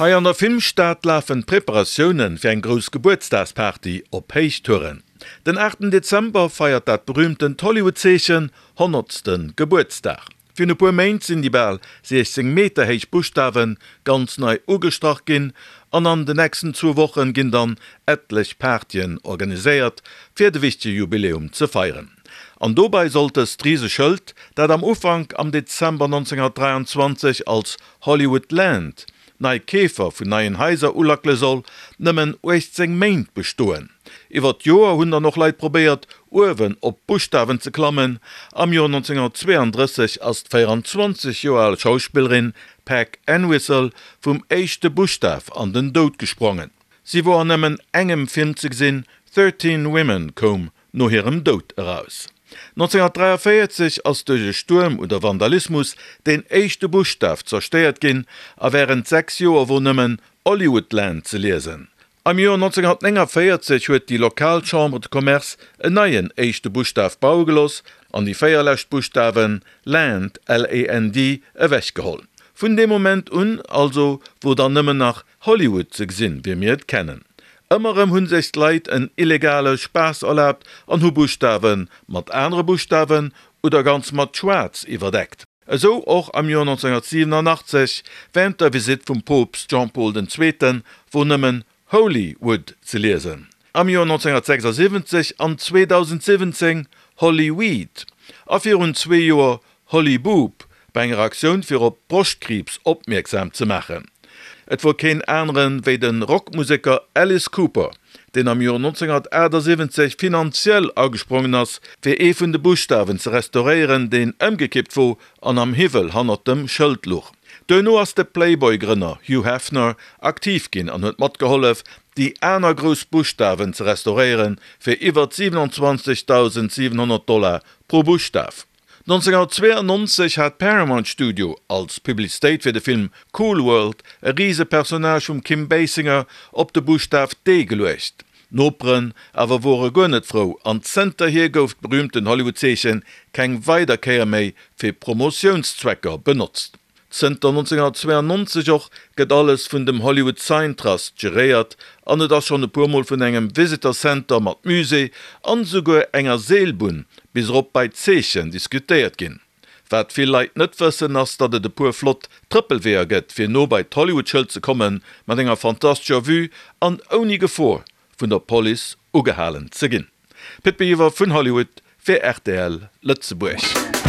Hei an der Filmstad lafen d'Preparatioune fir eng grouss Gebuertsdagsparty op Héichtouren. Den aachten Dezember feiert dat berüümtent Hollywood-Zeechen honnertste Gebuertsdag. Virun e puer Méint sinn déi bal 16 Meter héich Buschtawe ganz nei ugestrach ginn an an de nächsten zwou Wochen ginn dann etlech Partyen organiséiert fir de wichtege Jubiläum ze feieren. An dobei sollt dëst Riseschëld, dat am Ufank am Dezember 1923 als Hollywood Land nei Keefer vun neien Haiser ulackele soll, nëmmen 18 Méint bestoen. Iwwer d'Joer hunn dann och Leit probéiert, uewen op d'Buschtawen ze klammen. Am Joer 1932 ass d'24 Joer al Schauspillerin Peg Entwistle vum éischte Buschtaf an den Doud gesprongen. Si wor an nëmmen engem Film ze gesinn, Thirteen Women koum no hirem Doud eraus. 1943 ass duerch e Stuerm oder Vandalismus deen éischte Buschtaf zerstéiert ginn a wärend 6 Joer wor nëmmen Hollywoodland ze liesen. Am Joer 1949 huet déi lokal Chambre de Commerce en neien éischte Buschtaf baue gelooss an déi 4 lescht Buschtawen Land, L-A-N-D, ewechgeholl. Vun deem Moment un also wor dann nëmmen nach Hollywood ze gesinn, wéi mir et kennen. Ëmmer erëm hu sech d'Leit en illegale Spaass erlaabt an hu Buschtawe mat anere Buschtawen oder ganz mat Schwaarz iwwerdeckt. Esou och am Joer 1987 wärend der Visitt vum Poopst Jean-Paul den Zweeten, wor nëmmen Holy Wood ze liesen. Am Joer 1976 an 2017 Holly Weed a virun zwee Joer Holly Boob bei enger Aktioun fir op Broschtkriibs opmierksam ze maachen. Et wor keen aneren wéi de Rockmuseker Alice Cooper, deen am Joer 1978 finanziell agesprongen ass fir ee vun de Buschtawen ze restauréieren deen ëmgekippt wor an am Hiwwel hannert dem Schëld luch. Duerno ass de Playboy-Grënner Hugh Hefner aktiv ginn an huet matgehollef déi aner grouss Buschtawen ze restauréieren fir iwwert 27.700 Dollar pro Buschtaf. 1992 hat Paramount Studio als Publicitéit fir de Film Cool World e Risepersonnage vum Kim Basinger op de Buschtaf D geluecht. D'Noperen awer wore guer net frou an zënterhier gouf d'berühmten Hollywood-Zeechen keng weider Kéier méi fir Promotiounszwecker benotzt. Zënter 1992 och gëtt alles vun dem Hollywood Sign Trust geréiert an et ass schonn e puer Mol vun engem Visitor Center mat Musée an esouguer enger Seelbunn bis erop bei d'Zeechen diskutéiert ginn. Wat vill Leit net wëssen ass, datt et e puer flott Trëppelweeër gëtt fir no bei d'Hollywood-Schëld ze kommen, mat enger fantastescher Vue an ouni Gefor vun der Police ugehalen ze ginn. Pit Biwer vun Hollywood fir rtl Lëtzebuerg.